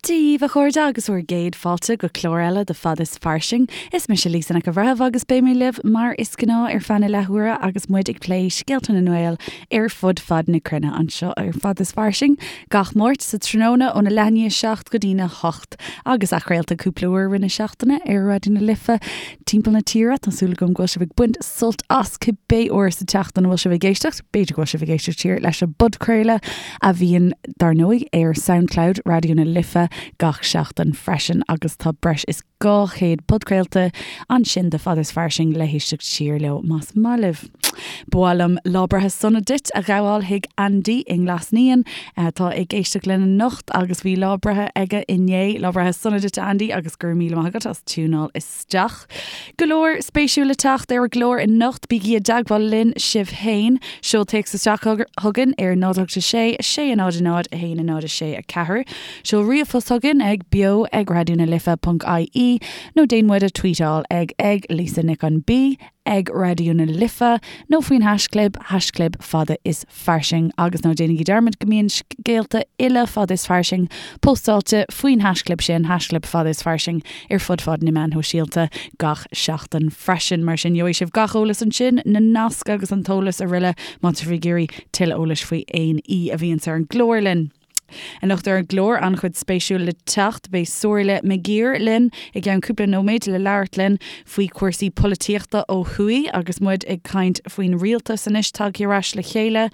Dia daoibh, a chairde, agus bhur gcéad fáilte go clár eile de Fad is Fairsing. Is mise Lisa Nic an Bhreithimh agus beidh mé libh mar is gnáth ar feadh na leathuaire agus muid ag plé scéalta na nGael ar fud fad na cruinne anseo ar Fad is Fairsing gach Máirt sa tráthnóna óna leath i ndiaidh 7 go dtína 8 agus athchraolta cúpla uair i rith na seachtaine ar Raidió na Life timpeall na tíre. Tá súil agam go bhfuil sibh ag baint sult as cibé uair sa tseachtain a bhfuil sibh ag éisteacht. B'fhéidir go bhfuil sibh ag éisteacht siar leis an bpodchraoladh a bhíonn, dar ndóigh, ar Soundcloud Raidió na Life gach seachtain freisin agus tá breis is 200 podchraolta ansin de Fad is Fairsing le héisteacht siar leo más maith libh. Ba mhaith liom lá breithe sona duit a ghabháil chuig Andy i nGlas Naíon atá ag éisteacht linn anocht agus bhí lá breithe aige inné. Lá breithe sona duit a Andy agus go raibh míle maith agat as tiúnáil isteach. Go leor spéisiúil le teacht ar an gclár anocht, bígí i dteagmháil linn sibh féin. Seol téacs isteach chugainn ar 0 8 6 6 0 0 1 0 6 4. Seol ríomhphost chugainn ag beo ag raidionalife.ie nó déan muid a tweetáil ag ag Lisa Nic an B ag Raidió na Life nó faoin haischlib, haischlib fada is fairsing agus ná déanaigí dearmad go mbíonn scéalta uile Fada is Fairsing póstáilte faoin haischlib sin, haischlib fada is fairsing, ar fud fad na meán shóisialta gach seachtain freisin. Mar sin, gheobhaidh sibh gach eolas ansin, na naisc agus an t-eolas araile má tá sibh ag iarraidh tuilleadh eolais faoi aon aoi a bhíonns ar an gclár linn. Anocht ar an gclár, an-chuid spéisiúil le teacht. Beidh Somhairle McGirr linn i gceann cúpla nóiméad le labhairt linn faoi chúrsaí polaitíochta ó thuaidh agus muid ag caint faoin rialtas anois tagtha ar ais le chéile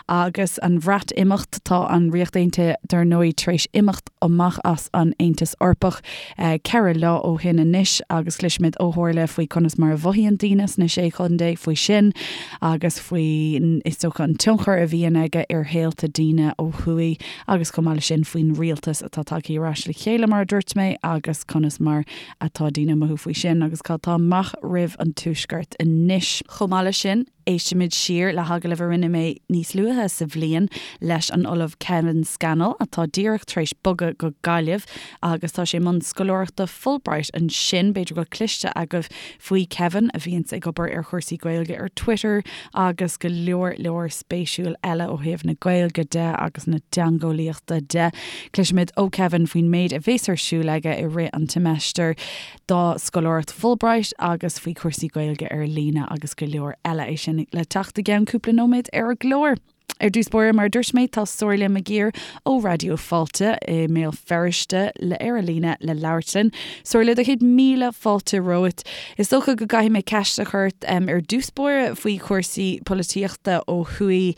agus an Bhreatimeacht. Tá an Ríocht Aontaithe dar ndóigh tar éis imeacht amach as an Aontas Eorpach 4 lá ó shin anois agus cloisfimid ó Shomhairle faoi conas mar a mhothaíonn daoine sna Sé Chontae faoi sin agus faoi, is dócha, an tionchar a bhíonn aige ar shaolta daoine ó thuaidh agus chomh maith leis sin faoin rialtas atá tagtha ar ais le chéile mar a dúirt mé agus conas mar atá daoine ag mothú faoi sin agus cad tá amach roimh an Tuaisceart anois. Chomh maith leis sin, Éistfimid siar le hagallamh a rinne mé níos luaithe sa bhliain leis an Ollamh Kevin Scannell, atá díreach tar éis bogadh go Gaillimh agus tá sé i mbun scoláireachta Fulbright ansin. B'fhéidir go bhfuil cloiste agaibh faoi Kevin, a bhíonns ag obair ar chúrsaí Gaeilge ar Twitter agus go leor leor spéisiúil eile ó thaobh na Gaeilge de agus na teangeolaíochta de. Cloisfimid ó Kevin faoin méid a bhéas ar siúl aige i rith an tseimeastair. dá scoláireacht Fulbright agus faoi chúrsaí Gaeilge ar líne agus go leor eile. É sin le teacht i gceann cúpla nóiméad ar an gclár. Ar dtús báire, mar a dúirt mé, tá Somhairle McGirr ó Raidió Fáilte i mBéal Feirste le ar an líne le labhairt linn. Somhairle, do chéad míle fáilte romhat. Is dócha go gcaithfidh mé ceist a chur ort ar dtús báire faoi chúrsaí polaitíochta ó thuaidh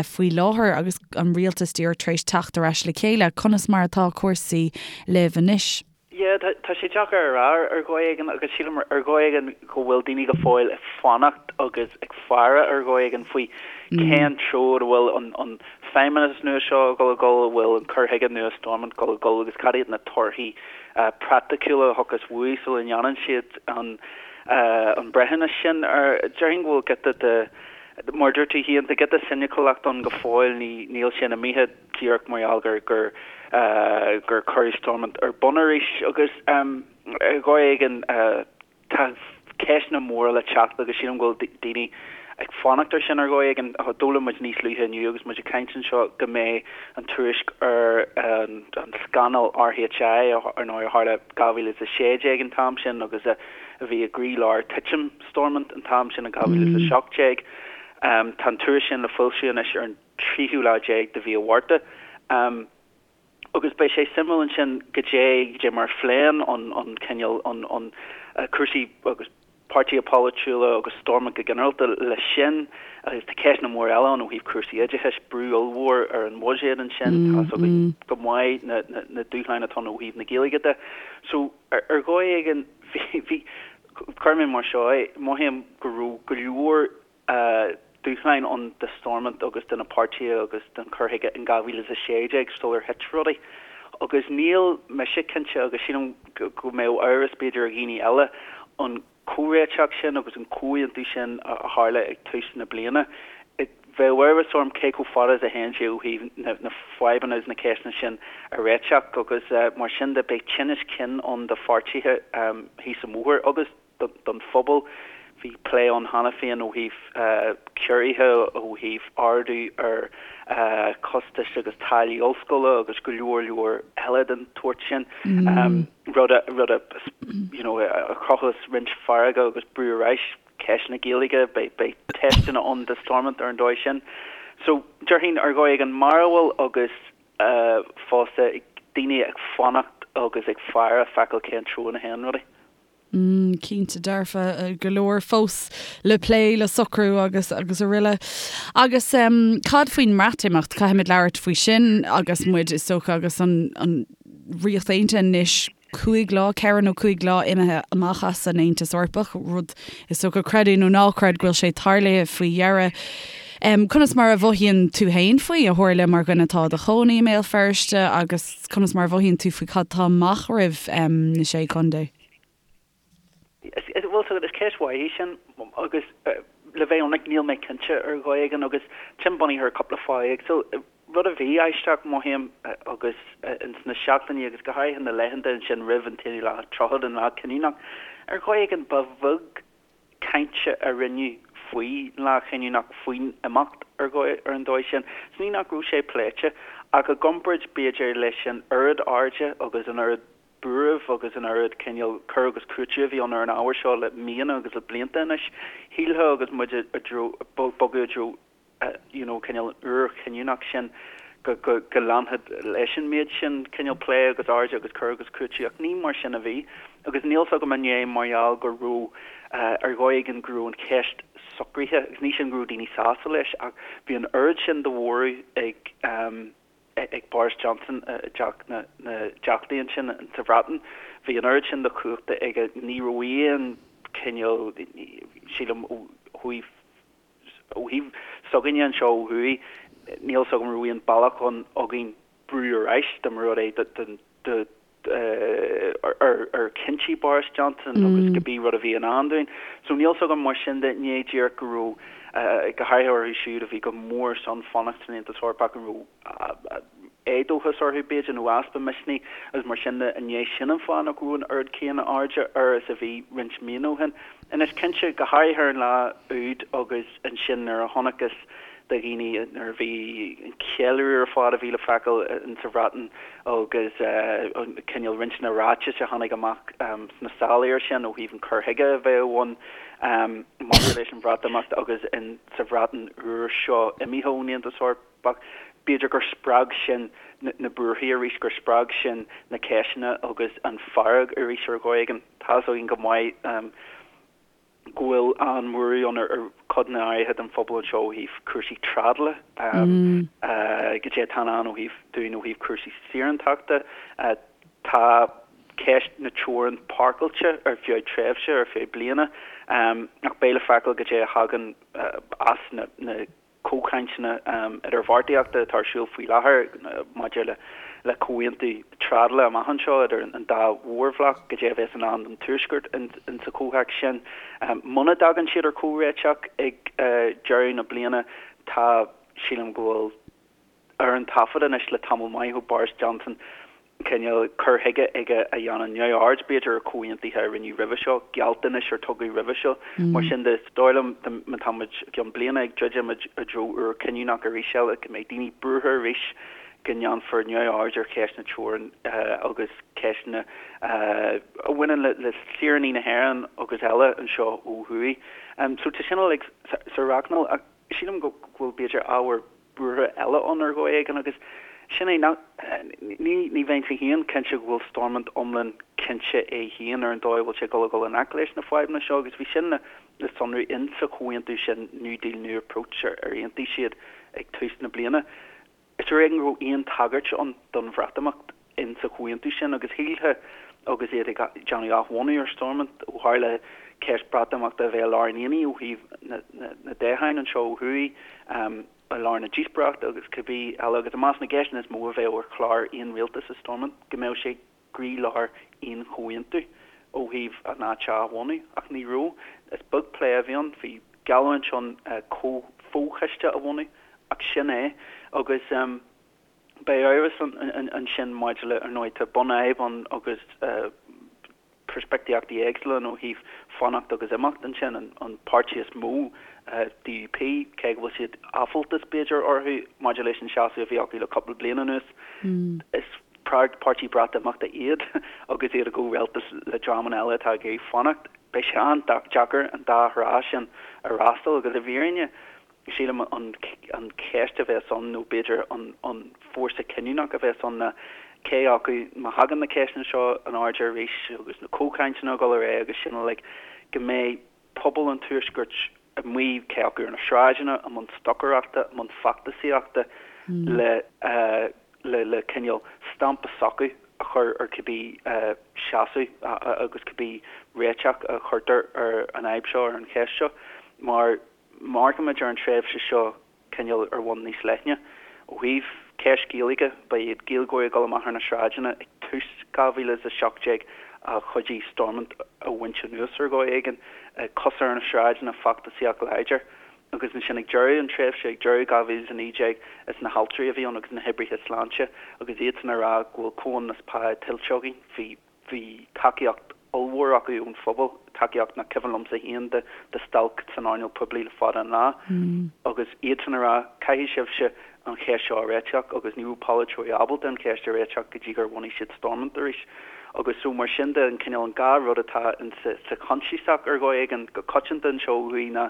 faoi láthair agus an rialtas díreach tar éis teacht ar ais le chéile. Conas mar atá cúrsaí libh anois? Yeah, tá sé deacair a rá ar dhóigh éigin agus sílim ar dhóigh éigin go bhfuil daoine go fóill ag fanacht agus ag faire ar dhóigh éigin faoi cén treo a bhfuil an feidhmeannas nua seo ag dul a dhul, a bhfuil an cur chuige nua Stormont ag dul a dhul agus cad iad na torthaí praiticiúla a thiocfas uaidh sula ndéanann siad an breithiúnas sin. Déarfainn go bhfuil giota de, mar a dúirt tú féin, tá giota soiniciúlacht ann go fóill, níl sé imithe. díreach mar gheall gur gur gur cuireadh Stormont ar bun arís agus ar dhóigh éigin tá ceisteanna móra le teacht agus sílim go bhfuil daoine ag fanacht ar sin ar dhóigh éigin. D'fhoghlaim muid níos luaithe inniu agus muid ag caint anseo go mbeidh an tuairisc ar an scannal RHI ar ndóigh a tharla 2016 an t-am sin agus a bhí i gcroílár titim Stormont an t-am sin in 2017. Tá an tuairisc sin le foilsiú anois ar an tríú lá déag de mhí an Mhárta. Agus beidh sé suimiúil ansin goidé goidé mar a phléann an an cineál an an cúrsaí agus páirtithe polaitiúla agus Stormont go ginearálta leis sin. Agus tá ceisteanna móra eile ann ó thaobh cúrsaí oideachais, brú ollmhór ar an bhuiséad ansin, tá fhios againn go maith na na dúshláin atá ann ó thaobh na Gaeilge de. So ar ar dhóigh éigin bhí bhí cuirfidh mé mar seo é, mothaím go raibh go leor dúshláin ann do Stormont agus do na páirtithe agus don chur chuige in 2016 sular thit rudaí. Agus níl mise cinnte, agus sílim go mbeadh amhras b'fhéidir ar dhaoine eile, an comhréiteach sin agus an comhaontú sin a tharla ag tús na bliana, bheadh amhras orm cé chomh fada is a théann sé ó thaobh na fadhbanna agus na ceisteanna sin a réiteach agus mar sin de beidh tinneas cinn ann do pháirtithe thíos an bóthar agus. don phobal. Bhí plé ann cheana féin ó thaobh ciorruithe, ó thaobh ardú ar chostais agus táillí ollscoile agus go leor leor eile den tsórt sin, rud a rud a you know a chruthós roinnt feirge agus brú ar ais, ceist na Gaeilge, beidh beidh teisteanna ann do Stormont ar an dóigh sin. So déarfainn ar dhóigh éigin mearbhall agus fosta daoine ag fanacht agus ag faire feiceáil cén treo ina théann rudaí. Cinnte dearfa, go leor fós le plé, le socrú agus agus araile. Agus cad faoin mBreatimeacht? Caithfimid labhairt faoi sin agus muid, is dócha, agus an an Ríocht Aontaithe anois cúig lá, ceithre nó cúig lá imithe amach as an Aontas Eorpach, rud is dócha, creid é nó ná creid, go bhfuil sé tarlaithe faoi dheireadh. Conas mar a mhothaíonn tú féin faoi, a Shomhairle, mar dhuine atá i do chónaí i mBéal Feirste agus. Conas mar a mhothaíonn tú faoi cad tá amach roimh na Sé Chontae? Bhuel, is ceist mhaith í sin agus le bheith ionraic níl mé cinnte ar dhóigh éigin agus sin bunaithe ar cúpla fáth éagsúil. Rud a bhí aisteach, mothaím, agus ins na seachtainí agus go háirithe na laethanta ansin roimh an t-aonú lá tríochad, an lá cinniúnach, ar dhóigh éigin ba bheag cainte a rinneadh faoin lá chinniúnach, faoin imeacht ar ar an dóigh sin. Is ní nach raibh sé pléite, ach i gcomparáid, b'fhéidir, leis an oiread airde agus an oiread buairimh agus an oiread cineál cur agus cúiteamh a bhí ann ar an ábhar seo le míonna agus le blianta anois, shílfeá agus muid i dtreo, bogadh i dtreo you know cineál an uair chinniúnach sin go go go leanfadh leis an méid sin cineál plé agus airde agus cur agus cúiteamh ach ní mar sin a bhí agus níl 's agam an é mar gheall go raibh ar dhóigh éigin go raibh an cheist socraithe agus ní sin go raibh daoine sásta leis ach bhí an oiread sin de bhorradh ag ag Boris Johnson i dTeach na dTeachtaí ansin sa Bhreatain. Bhí an oiread sin de chumhachta aige ní raibh aon chineál sílim ó thaobh Ó thaobh s'againne anseo ó thuaidh, níl 's agam an raibh aon bealach ann againn brú ar ais dá mba rud é do ar chinntí Boris Johnson agus cibé rud a bhí i ndán dúinn. So níl 's agam mar sin de, ní díreach go raibh, go háirithe orthu siúd a bhí go mór ar son fanacht san Aontas Eorpach, an raibh éadóchas orthu b'fhéidir nó easpa misnigh agus mar sin de, an é sin an fáth nach raibh an oiread céanna airde air is a bhí roinnt míonna ó shin. Anois cinnte, go háirithe ar an lá úd agus ansin nuair a chonacthas do dhaoine nuair a bhí an ceiliúradh ar fad a bhí le feiceáil in sa Bhreatain agus cineál roinnt na ráitis a tháinig amach sna sála air sin ó thaobh an cur chuige a bheadh ann maidir leis an Bhreatimeacht agus in sa Bhreatain úr seo imithe ón Aontas Eorpach. B'fhéidir gur spreag sin na buarthaí arís, gur spreag sin na ceisteanna agus an fearg arís ar dhóigh éigin. Tá's againn go maith go bhfuil an-bhuaireamh ann ar chodanna áirithe den phobal anseo ó thaobh cúrsaí trádála, goidé atá i ndán ó thaobh dúinn ó thaobh cúrsaí saorántachta. Tá ceist na teorann páirceáilte ar feadh tréimhse, ar feadh bliana, ach beidh le feiceáil goidé a thagann as na comhchainteanna idirbheartaíochta atá ar siúl faoi láthair maidir le comhaontú trádála amach anseo idir an dá mhórbhloc, goidé a bheas i ndán don Tuaisceart insa chomhthéacs sin. Muna dtagann siad ar chomhréiteach ag deireadh na bliana, tá, sílim go bhfuil ar an taifead anois le tamall maith ó Boris Johnson, cineál cur chuige aige a dhéanann neamhaird, b'fhéidir, ar chomhaontuithe a rinneadh roimhe seo, gealltanais ar tugadh roimhe seo. Mar sin de, is dóigh liom, má tá muid i gceann bliana ag druidim i dtreo uair chinniúnach arís eile, go mbeidh daoine buartha arís go ndéanfar neamhaird ar cheist na teorann agus ceisteanna a bhaineann le saoránaigh na hÉireann agus eile anseo ó thuaidh. So tá sin uilig sa rachnall ach sílim go bhfuil, b'fhéidir, ábhar buartha eile ann ar dhóigh éigin agus sin é nach, ní, ní bheinnse féin cinnte go bhfuil Stormont iomlán cinnte é féin ar an dóigh a bhfuil sé ag dul a dhul i ngleic leis na fadhbanna seo agus bhí sin le, le sonrú in sa chomhaontú sin New Deal New Approach ar ar aontaigh siad ag tús na bliana. Is ar éigean go raibh aon tagairt ann don Bhreatimeacht in sa chomhaontú sin agus shílfeá agus iad ag déanamh athbhunú ar Stormont ó tharla ceist Breatimeachta a bheith i lár an aonaigh ó thaobh na dtoghchán anseo ó thuaidh, i lár na díospóireachta agus cibé eile agus i measc na gceisteanna is mó a bheadh ar chlár aon rialtas i Stormont go mbeadh sé i gcroílár aon chomhaontú ó thaobh an áit a athbhunú ach ní raibh. Is beag plé a bhí ann. Bhí geallúint ann fo-choiste a bhunú ach sin é agus. Beidh amhras ansin maidir le, ar ndóigh, tá bunfhadhb ann agus peirspictíochtaí éagsúla ann ó thaobh fanacht agus imeacht ansin, an páirtí is mó, DUP, cé go bhfuil siad áiféaltas b'fhéidir orthu maidir leis an seasamh a bhí acu le cúpla bliain anuas, is páirtí Breatimeachta iad agus iad i gcomhrialtas le dreamanna eile atá ag iarraidh fanacht. Beidh sé an-deacair an dá thrá sin a fhreastal agus i bhfírinne, Sílim an cheist a bheas ann, nó b'fhéidir an fórsa cinniúnach a bheas ann ná cé acu, má thagann na ceisteanna seo in airde arís agus na comhchainteanna ag dul ar aghaidh agus sin uilig, go mbeidh pobal an Tuaiscirt amuigh, cé acu ar na sráideanna, i mbun stocaireachta, i mbun feachtasaíochta le le cineál stampa s'acu a chur ar cibé seasamh agus cibé réiteach a chuirtear ar an fhadhb seo, ar an cheist seo. Mar. Má amharcaimid ar an tréimhse seo cineál ar bhonn níos leithne, ó thaobh ceist Gaeilge, ba iad Gaeilgeoirí ag dul amach ar na sráideanna ag tús 2017 a chuidigh Stormont a bhaint anuas ar dhóigh éigin, cosa ar na sráideanna, feachtasaíocht láidir. Agus ansin ag deireadh an tréimhse, ag deireadh 2019, is na haltraí a bhí ann agus na hoibrithe sláinte agus iadsan ag rá go bhfuil comhionannas pá tuillte againn. Bhí. Bhí tacaíocht ollmhór acu ón phobal, tacaíocht nach cuimhin liomsa féin de stailc san earnáil poiblí le fada an lá, agus iadsan ag rá, caithfidh sibhse an cheist seo a réiteach agus ní raibh polaiteoirí ábalta an cheist a réiteach go dtí gur bhunaigh siad Stormont arís. Agus so mar sin de, an cineál, an dá rud atá in sa choinsiasach ar dhóigh éigin go coitianta anseo ó thuaidh ná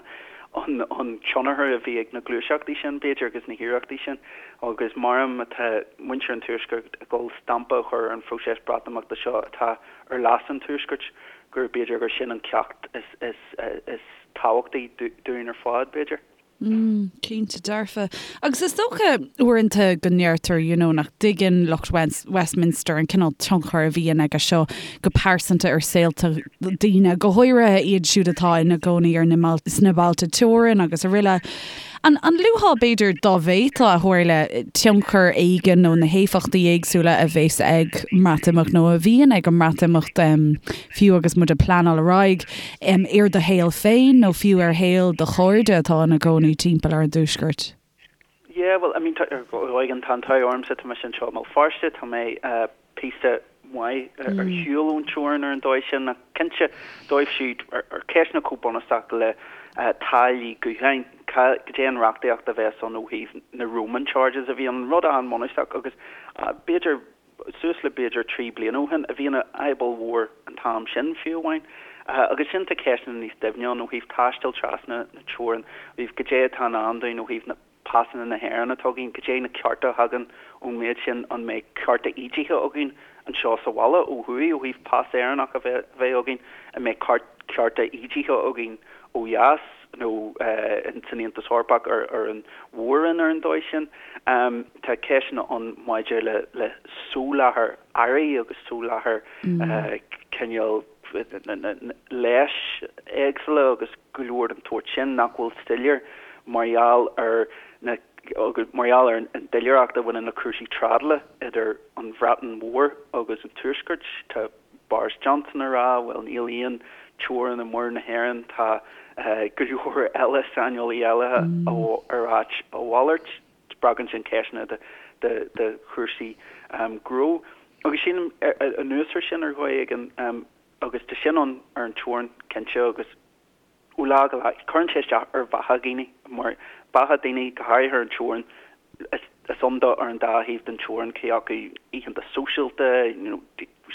an an tionchar a bhí ag na gluaiseachtaí sin, b'fhéidir, agus na hiarrachtaí sin. Agus mar má tá muintir an Tuaiscirt ag dul stampa a chur ar an phróiseas Breatimeachta seo atá ar leas an Tuaiscirt, gur b'fhéidir gur sin an ceacht is tábhachtaí dúinn ar fad, b'fhéidir. Mm, cinnte dearfa. Agus is dócha uaireanta go ndeirtear, you know, nach dtuigeann lucht Westminster an cineál tionchair a bhíonn aige seo go pearsanta ar saolta daoine, go háirithe iad siúd atá ina gcónaí ar na, sna bailte teorann agus araile. An luafá, b'fhéidir, dá bhféadfá a thuar, tionchar éigin nó na héifeachtaí éagsúla a bheas ag an mBreatimeacht nó a bhíonn ag an mBreatimeacht, fiú agus muid ag pleanáil ar aghaidh, ar do shaol féin nó fiú ar shaol do chairde atá ina gcónaí timpeall ar an dTuaisceart? Yeah, well, I mean, tá, ar dhóigh éigin, tá an t-ádh ormsa, tá mise anseo i mBéal Feirste, tá mé píosa maith ar shiúl ón teorainn ar an dóigh sin, ach cinnte, dóibh siúd, ar ceisteanna chomh bunúsach le táillí gutháin, goidé an reachtaíocht a bheas ann ó thaobh na roaming charges a bhí ann, rud an-bhunúsach agus b'fhéidir suas le b'fhéidir 3 bliana ó shin, a bhí ina fhadhb ollmhór an t-am sin fiú amháin. Agus sin tá ceisteanna níos doimhne ann ó thaobh taisteal trasna na teorann, ó thaobh goidé atá i ndán dúinn ó thaobh na pasanna na hÉireann atá againn, goidé na cearta a thagann ón méid sin, an mbeidh cearta ídithe againn anseo sa bhaile ó thuaidh ó thaobh pas Éireannach a bheith againn, an mbeidh cearta ídithe againn ó dheas nó san Aontas Eorpach ar an mhór-roinn ar an dóigh sin. Tá ceisteanna ann maidir le soláthar earraí agus soláthar cineál leighis éagsúla agus go leor den tsórt sin nach bhfuil soiléir mar gheall ar na mar gheall ar an doiléireacht a bhaineann le cúrsaí trádála idir an Bhreatain Mhór agus an Tuaisceart. Tá Boris Johnson ag rá, bhuel níl aon teorainn i Muir na hÉireann, tá go leor eile, saineolaí eile ag ráit a mhalairt. Spreagann sin ceisteanna de chúrsaí gnó. Agus sílim, anuas air sin, ar dhóigh éigin, agus tá sin ann ar an teorainn, cinnte, agus ó lá go lá, cuireann sé isteach ar bheatha dhaoine, mar beatha daoine, go háirithe ar an teorainn, is ann dó ar an dá thaobh den teorainn, cé acu oícheanta sóisialta, you know,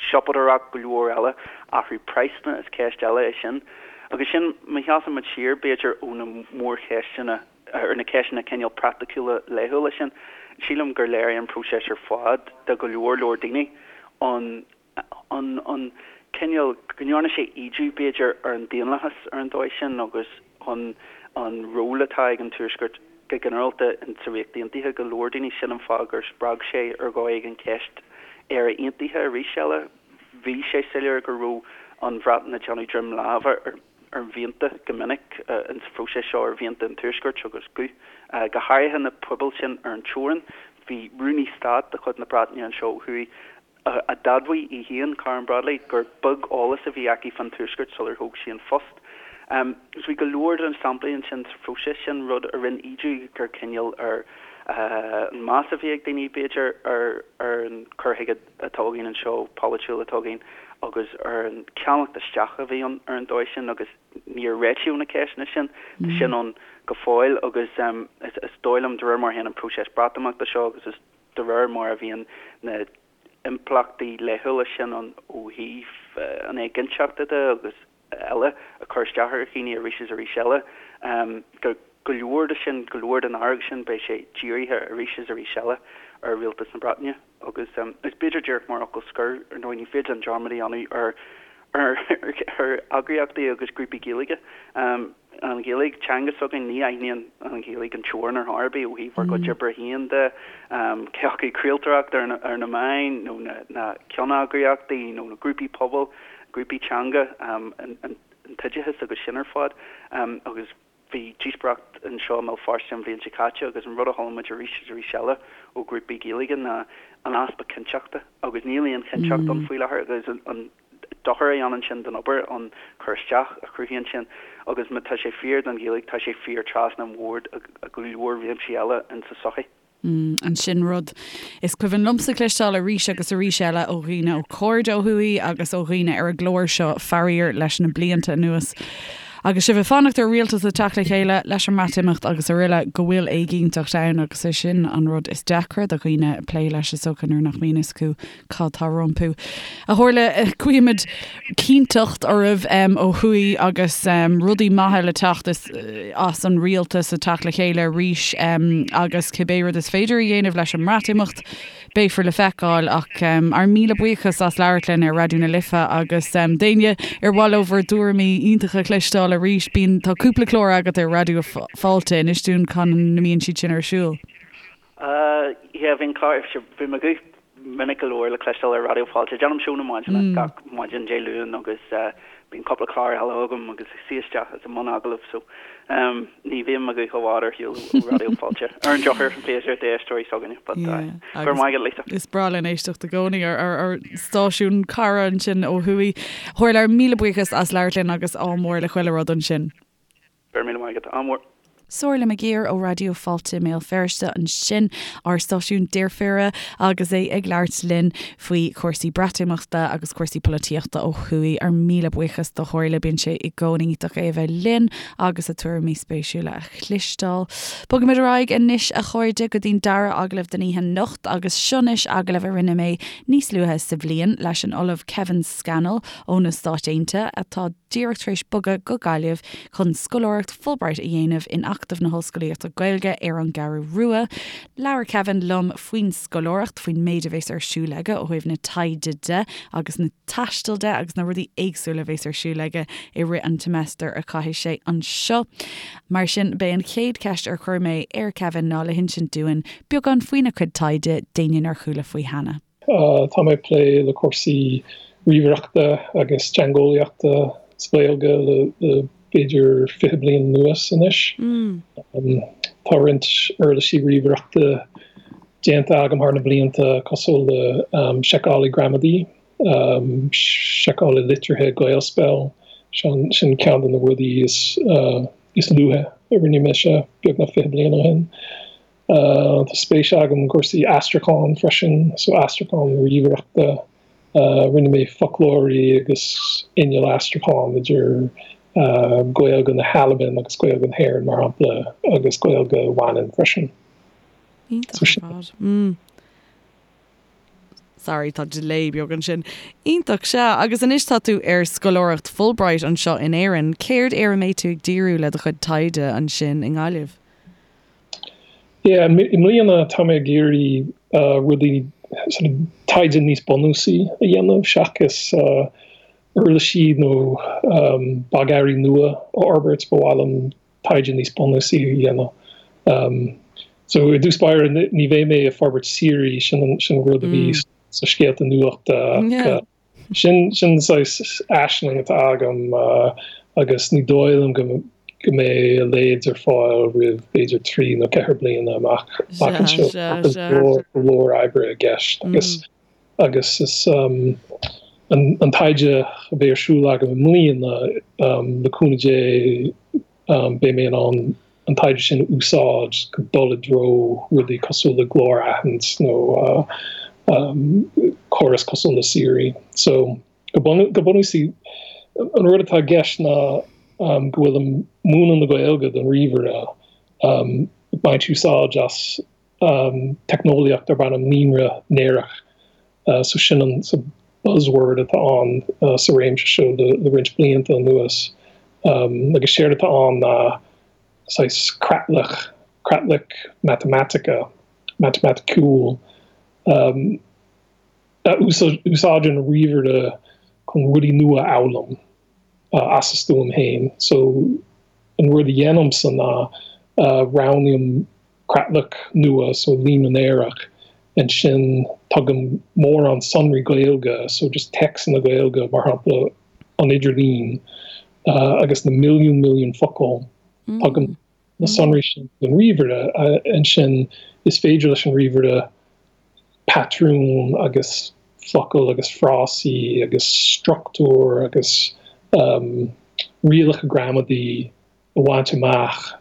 siopadóireacht, go leor eile, athrú praghsanna, is ceist eile é sin. Agus sin, má sheasann muid siar, b'fhéidir, ó na mórcheisteanna, ar na ceisteanna cineál praiticiúla laethúla sin, sílim gur léirigh an próiseas ar fad do go leor leor daoine an an an cineál, go ndearna sé ídiú b'fhéidir ar an daonlathas ar an dóigh sin agus an an ról atá ag an Tuaisceart go ginearálta in sa Ríocht Aontaithe go leor daoine. Sin an fáth gur spreag sé ar dhóigh éigin ceist Éire Aontaithe arís eile. Bhí sé soiléir go raibh an Bhreatain ag déanamh droim láimhe ar ar mhianta go minic in sa phróiseas seo, ar mhianta an Tuaiscirt agus guth, go háirithe na pobail sin ar an teorainn. Bhí Rúnaí Stáit de chuid na Breataine anseo ó thuaidh a d'admhaigh í féin, Karen Bradley, gur beag eolas a bhí aici fán Tuaisceart sular thóg sí an phost. So bhí go leor de na samplaí ansin sa phróiseas sin, rud a rinne ídiú gur cineál ar. an meas a bhí ag daoine, b'fhéidir, ar ar an cur chuige atá againn anseo, polaitiúil atá againn, agus ar an ceannacht isteach a bhí ann ar an dóigh sin agus níor réitíodh na ceisteanna sin. Tá sin ann go fóill agus is dóigh liom, de réir mar a théann an próiseas Breatimeachta seo agus is de réir mar a bhíonn na impleachtaí laethúla sin ann ó thaobh an éiginnteachta de agus eile ag cur isteach ar dhaoine arís is arís eile. Go go leor de sin, go leor den fhearg sin, beidh sé dírithe arís is arís eile ar Rialtas na Breataine. Agus is b'fhéidir díreach mar fhocal scoir, ar ndóigh, ní féidir linn dearmad a dhéanamh ar ar ar eagraíochtaí agus grúpaí Gaeilge. An Ghaeilge, teanga s'againn, ní aithníonn an Ghaeilge an teorainn ar chor ar bith ó thaobh ár gcuid oibre féin de, cé acu craoltóireacht ar na ar na meáin nó na na ceanneagraíochtaí nó na grúpaí pobail. grúpaí teanga, an t-oideachas agus sin ar fad. Agus bhí díospóireacht anseo i mBéal Feirste an bhliain seo caite agus an rud a chuala muid arís is arís eile ó ghrúpaí Gaeilge ná an easpa cinnteachta agus níl aon chinnteacht ann faoi láthair agus an dochar a dhéanann sin don obair, an cur isteach a chruthaíonn sin agus má tá sé fíor don Ghaeilge tá sé fíor trasna an bhoird i go leor réimsí eile in sa tsochaí. An sin rud is cuimhin liomsa cloisteáil arís agus arís eile ó dhaoine, ó chairde ó thuaidh agus ó dhaoine ar an gclár seo, faraor, leis na blianta anuas. Agus sibh ag fanacht ar rialtas a teacht le chéile leis an mBreatimeacht agus araile, go bhfuil éiginnteacht ann agus é sin an rud is deacra do dhaoine plé leis is dócha nuair nach mbíonn fhios acu cad tá rompu. A Shomhairle, guímid cinnteacht oraibh ó thuaidh agus rudaí maithe le teacht as an rialtas ag teacht le chéile arís agus cibé rud is féidir a dhéanamh leis an mBreatimeacht, beifear le feiceáil. Ach ár míle buíochas as labhairt linn ar Raidió na Life agus d'éinne ar mhaith leo bhur dtuairimí iontacha a chloisteáil arís, bíonn, tá cúpla clár agat ar Raidió Fáilte, inis dúinn cá mbíonn siad sin ar siúl. Yeah, bhí an clár, bhí mo ghuth minic go leor le cloisteáil ar Raidió Fáilte. Déanaim seó na maidine gach maidin Dé Luain agus bíonn cúpla clár eile agam agus ag suí isteach is i mbun agallamh so ní bhíonn mo guth i bhfad ar shiúl ó Raidió Fáilte. Ar an drochuair, b'fhéidir d'éisteoirí s'againne but go raibh maith agat Lisa. Is breá linn éisteacht i gcónaí ar ár stáisiún cara ansin ó thuaidh. Shomhairle, míle buíochas as labhairt linn agus ádh mór le chuile rud ansin. Go raibh míle maith agat. Ádh mór. Somhairle McGeer ó Raidió Fáilte i mBéal Feirste ansin, ár stáisiún deirféara, agus é ag labhairt linn faoi chúrsaí Breatimeachta agus cúrsaí polaitíochta ó thuaidh. Ár míle buíochas do Shomhairle, bíonn sé i gcónaí iontach é a bheith linn agus a tuairimí spéisiúla a chloisteáil. Bogaimid ar aghaidh anois, a chairde, go dtí'n dara agallamh den oíche anocht agus seo anois agallamh a rinne mé níos luaithe sa bhliain leis an Ollamh Kevin Scannell ó na Stáit Aontaithe atá díreach tar éis bogadh go Gaillimh chun scoláireacht Fulbright a dhéanamh in Acadamh na hOllscolaíochta Gaeilge ar an gCeathrú Rua. Labhair Kevin liom faoin scoláireacht, faoin méid a bhéas ar siúl aige ó thaobh na taighde de agus na taistil de agus na rudaí éagsúla a bhéas ar siúl aige i rith an tseimeastair a chaithfidh sé anseo. Mar sin, b'é an chéad cheist ar chuir mé ar Kevin ná le hinsint dúinn beagán faoina chuid taighde d'éinne nár chuala faoi cheana. Tá mé ag plé le cúrsaí ríomhaireachta agus teangeolaíochta sa Ghaeilge le b'fhéidir 20 bliain anuas anois. Tá roinnt uirlisí ríomhaireachta déanta agam thar na blianta cosúil le seiceálaí gramadaí, seiceálaí litrithe Gaelspell, sin ceann de na rudaí is luaithe a rinne mise beagnach 20 bliain ó shin. Tá spéis agam i gcúrsaí aistriúcháin freisin, so aistriúchán ríomhaireachta. Rinne mé foclóirí agus inneall aistriúcháin idir Gaeilge na hAlban agus Gaeilge na hÉireann, mar shampla, agus Gaeilge Mhanann freisin. Iontach ar fad. Sorry, tá delay beag ansin. Iontach, sea. Agus anois tá tú ar scoláireacht Fulbright anseo in Éirinn. Céard ar a mbeidh tú ag díriú le do chuid taighde ansin i nGaillimh? Yeah, i mbliana tá mé ag iarraidh rudaí, sort of taighde níos bunúsaí a dhéanamh seachas uirlisí nó bogearraí nua a fhorbairt, ba mhaith liom taighde níos bunúsaí a dhéanamh. So i dtús báire ní bheidh mé ag forbairt Siri, sin an rud a bhí sa scéalta nuachta ach Sin sin saghas aisling atá agam agus ní dóigh liom go go mbeidh a leithéid ar fáil roimh b'fhéidir 3 nó 4 bliana amach amach anseo. Tá go leor go leor oibre i gceist agus agus is an an taighde a bheidh ar siúl agam i mbliana le cúnamh Dé beidh mé in ann. an taighde sin a úsáid chun dul i dtreo rudaí cosúil le glór-aithint nó córas cosúil le Siri. So, go bunúsach, an rud atá i gceist ná go bhfuilim ag múineadh na Gaeilge don ríomhaire, ag baint úsáid as teicneolaíocht darb ainm líonra néarach. So sin an buzzword atá ann sa réimse seo le roinnt blianta anuas. Agus séard atá ann ná saghas creatlach, creatlach matamaitice, matamaiticiúil, a úsáideann an ríomhaire chun rudaí nua a fhoghlaim as a stuaim féin. So an rud a dhéanaimse ná roghnaím creatlach nua, so líonra néarach, ansin tugaim mórán sonraí Gaeilge, so just téacsanna Gaeilge, mar shampla an idirlíon agus na milliún milliún focal, tugaim na sonraí sin don ríomhaire, ansin is féidir leis an ríomhaire patrúin agus focail agus frásaí agus struchtúr agus rialacha gramadaí a bhaint amach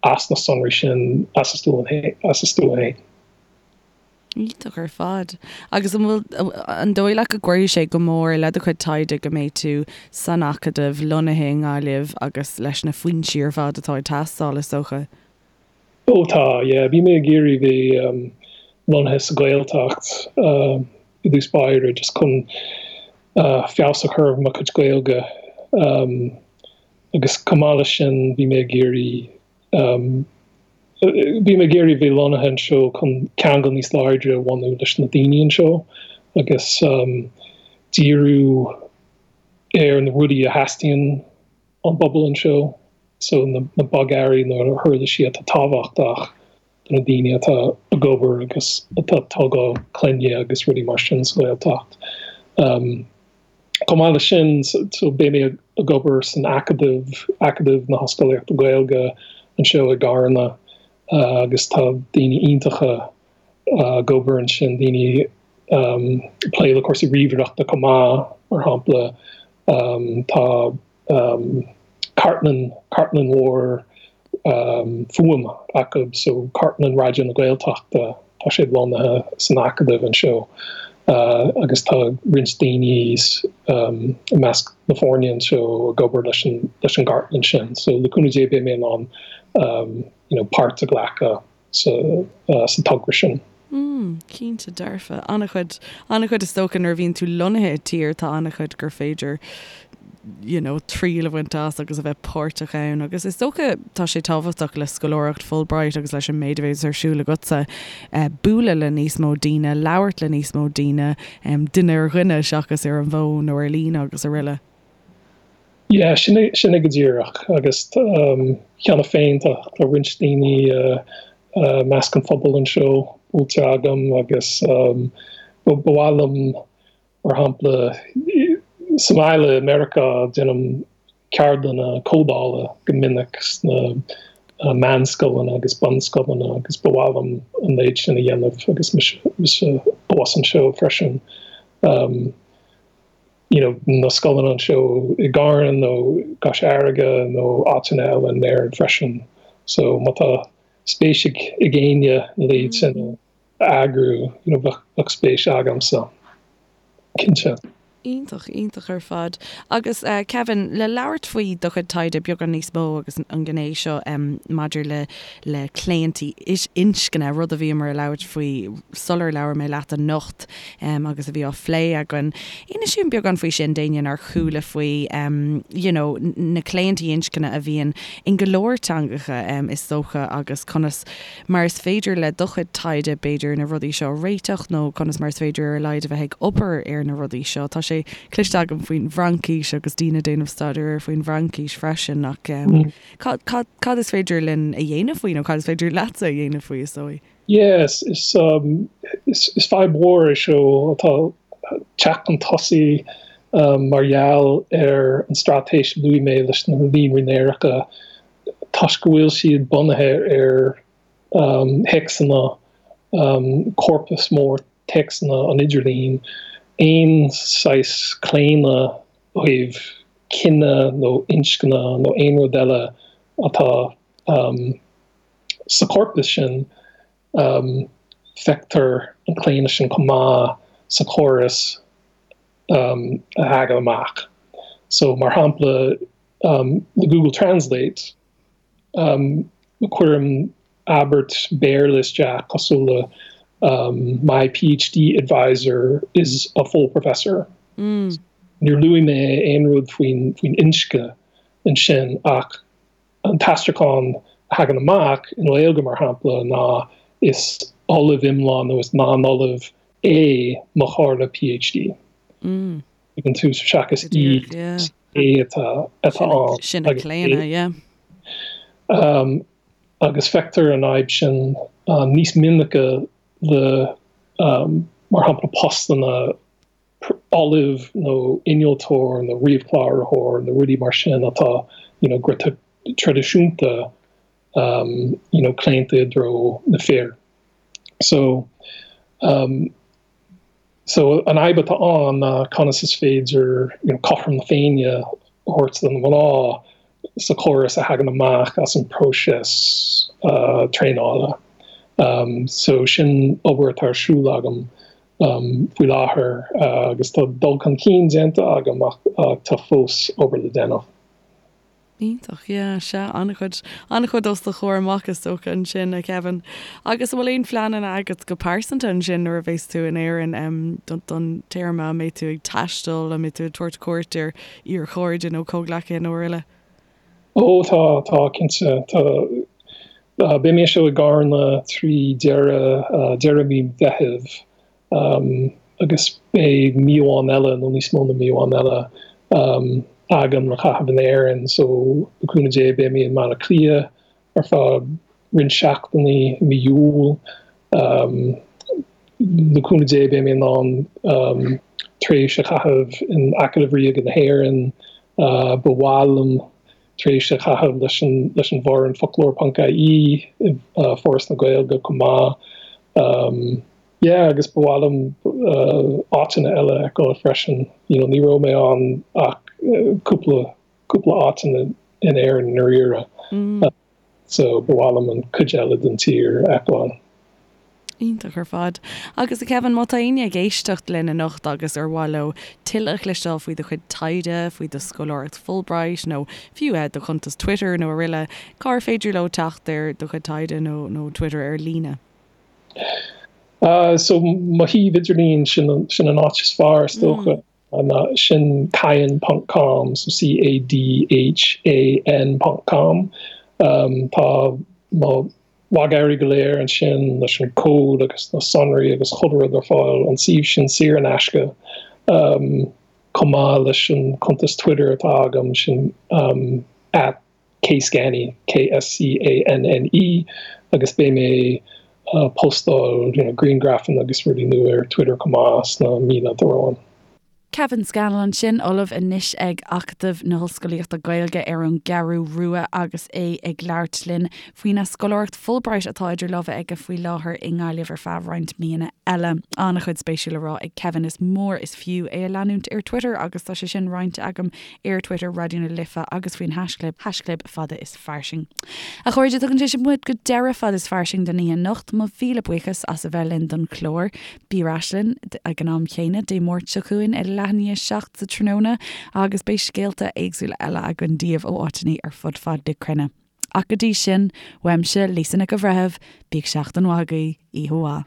as na sonraí sin as a stuaim féin. Iontach ar fad. Agus an bhfuil, an dóigh leat go gcuirfidh sé go mór le do chuid taighde go mbeidh tú san Acadamh, lonnaithe i nGaillimh agus leis na foinsí ar fad atá ag teastáil, is dócha? Ó tá, yeah. Bhí mé ag iarraidh bheith lonnaithe sa Ghaeltacht i dtús báire just chun feabhas a chur ar mo chuid Gaeilge. Agus chomh maith leis sin bhí mé ag iarraidh bhí mé ag iarraidh bheith lonnaithe anseo chun ceangal níos láidre a bhunú leis na daoine anseo agus díriú ar na rudaí a theastaíonn ón bpobal anseo, so na bogearraí nó na huirlisí atá tábhachtach do na daoine atá ag obair agus atá ag tógáil clainne agus rudaí mar sin sa Ghaeltacht. Chomh maith leis sin, so beidh mé ag obair san Acadamh, Acadamh na hOllscolaíochta Gaeilge anseo i gCarna agus tá daoine iontacha ag obair ansin, daoine ag plé le cúrsaí ríomhaireachta chomh maith, mar shampla tá cartlann, cartlann mhór fuaime acu, so cartlann Raidió na Gaeltachta, tá sé lonnaithe san Acadamh anseo agus tá roinnt daoine i measc na foirne anseo ag obair leis an leis an gcartlann sin. So le cúnamh Dé beidh mé in ann you know páirt a ghlacadh sa sa togra sin. Mm, cinnte dearfa. An-chuid, an-chuid is dócha nuair a bhíonn tú lonnaithe i dtír tá an-chuid gur féidir you know, triail a bhaint as agus a bheith páirteach ann agus is dócha tá sé tábhachtach le scoláireacht Fulbright agus leis an méid a bhéas ar siúl agatsa eh, bualadh le níos mó daoine, labhairt le níos mó daoine, em, duine ar dhuine seachas ar an bhfón nó ar líne agus araile. Yeah, sin é, sin é go díreach agus um, cheana féin tá, tá roinnt daoine uh, uh, measc an phobail anseo buailte agam agus um, ba, ba mhaith liom mar shampla sa mbaile i Meiriceá déanaim ceardlanna códála go minic sna uh, meánscoileanna agus bunscoileanna agus ba mhaith liom an méid sin a dhéanamh agus mise, mise abhus anseo freisin. Um, you know, na scoileanna anseo i gCarna nó i gCois Fharraige nó áiteanna eile in Éirinn freisin. So má tá spéis ag ag éinne a leithéid sin a eagrú, you know, bheadh bheadh spéis agamsa. Cinnte. Iontach, iontach ar fad. Agus eh Kevin, le labhairt faoi do chuid taighde beagán níos mó agus an ghné seo em maidir le le claontaí inscne, rud a bhíomar ag labhairt faoi sular labhair mé leat anocht agus a bhí á phlé againn. Inis dúinn beagán faoi sin d'éinne nár chuala faoi you know na claontaí inscne a bhíonn in go leor teangacha is dócha agus conas mar is féidir le do chuid taighde b'fhéidir na rudaí seo a réiteach nó conas mar is féidir ar a laghad a bheith ag obair ar na rudaí seo. Tá sé cloiste agam faoin bhFraincis agus daoine ag déanamh staidéir air faoin bhFraincis freisin ach cad, cad, cad is féidir linn a dhéanamh faoi nó cad is féidir leatsa a dhéanamh faoi is dóigh? Yes, is, um, is, is fadhb mhór é seo atá ag teacht chun tosaigh um, mar gheall ar an straitéis a luaigh mé leis na líonraí néaracha toisc go bhfuil siad bunaithe ar um, théacsanna um, corpus mór téacsanna an idirlín, aon saghas claonadh ó thaobh cine nó inscne nó aon rud eile atá. sa chorpas sin feictear an claonadh sin chomh maith sa chóras a thagann amach. So mar shampla le Google Translate cuirim abairt Béarla isteach cosúil le My PhD advisor is a full professor. Níor luaigh mé aon rud faoin inscne ansin ach an t-aistriúchán a thagann amach i nGaeilge, mar shampla, ná is ollamh iomlán nó is lán-ollamh é mo chomhairleoir PhD. Ag an tús seachas í, é atá ann. Sin an claonadh, yeah. Agus feictear an fhadhb sin níos minice le, mar shampla, postanna ollamh nó innealtóir nó ríomhchláraitheoir nó rudaí mar sin atá you know go traidisiúnta you know claonta i dtreo na fir. So um so an fhadhb atá ann ná conas is féidir you know cothrom na Féinne a thabhairt do na mná sa chóras a thagann amach as an próiseas traenála. So sin obair atá ar siúl agam faoi láthair agus tá dul chun cinn déanta agam ach tá fós obair le déanamh. Iontach, yeah, sea, an-chuid, an-chuid os do chomhair amach is dócha ansin, a Kevin. Agus an bhfuil aon phleananna agat go pearsanta ansin nuair a bheas tú in Éirinn don téarma, an mbeidh tú ag taisteal, an mbeidh tú ag tabhairt cuairt ar iar-chairde nó comhghleacaithe nó araile? Ó tá, tá, cinnte. Tá, beidh mé anseo i gCarna trí deireadh, deireadh mí Mheithimh agus beidh mí amháin eile nó níos mó ná mí amháin eile agam le caitheamh in Éirinn so le cúnamh Dé beidh mé i mBaile Átha Cliath ar feadh roinnt seachtainí i mí Iúil. Le cúnamh Dé beidh mé in ann tréimhse a chaitheamh in Acadamh Ríoga na hÉireann. Ba mhaith liom tréimhse a chaitheamh leis an leis an bhfoireann Foclóir ponc ie i Foras na Gaeilge chomh maith. Yeah agus ba mhaith liom áiteanna eile a fheiceáil freisin. You know ní raibh mé ann ach cúpla cúpla áit in Éirinn i ndáiríre. So ba mhaith liom an cuid eile den tír a fheiceáil. Iontach ar fad. Agus a Kevin, má tá éinne ag éisteacht linn anocht agus ar mhaith leo tuilleadh a chloisteáil faoi do chuid taighde, faoi do scoláireacht Fulbright nó fiú do chuntas Twitter nó araile, cár féidir leo teacht ar do chuid taighde nó nó Twitter ar líne? So mo shuíomh idirlín, sin sin an áit is fearr is dócha. Ná sin cadhan ponc com, so C-A-D-H-A-N ponc com. Tá mo bhogearraí go léir ansin leis an cód agus na sonraí agus chuile rud ar fáil, an suíomh sin saor in aisce, chomh maith leis an cuntas Twitter atá agam, sin at kscanne, K-S-C-A-N-N-E, agus beidh mé ag postáil you know grianghrafanna agus rudaí nua ar Twitter chomh maith sna míonna atá romhainn. Kevin Scannell ansin, ollamh anois ag Acadamh na hOllscolaíochta Gaeilge ar an gCeathrú Rua agus é ag labhairt linn faoina scoláireacht Fulbright atá idir lámha aige faoi láthair i nGaillimh ar feadh roinnt míonna eile. An-chuid spéisiúil le rá ag Kevin, is mór is fiú é a leanúint ar Twitter agus tá sé sin roinnte agam ar Twitter, Raidió na Life agus faoin haischlib, haischlib fada is fairsing. A chairde, tugann sé sin muid go deireadh Fada is Fairsing don oíche anocht. Mo mhíle buíochas as a bheith linn don chlár. Bí ar ais linn ag an am chéanna Dé Máirt seo chugainn ag leath i ndiaidh 7 sa tráthnóna agus beidh scéalta éagsúla eile againn daoibh ó áiteanna ar fud fad na cruinne. Ach go dtí sin, uaimse, Lisa Nic an Bhreithimh, bíodh seachtain mhaith agaibh, oíche mhaith.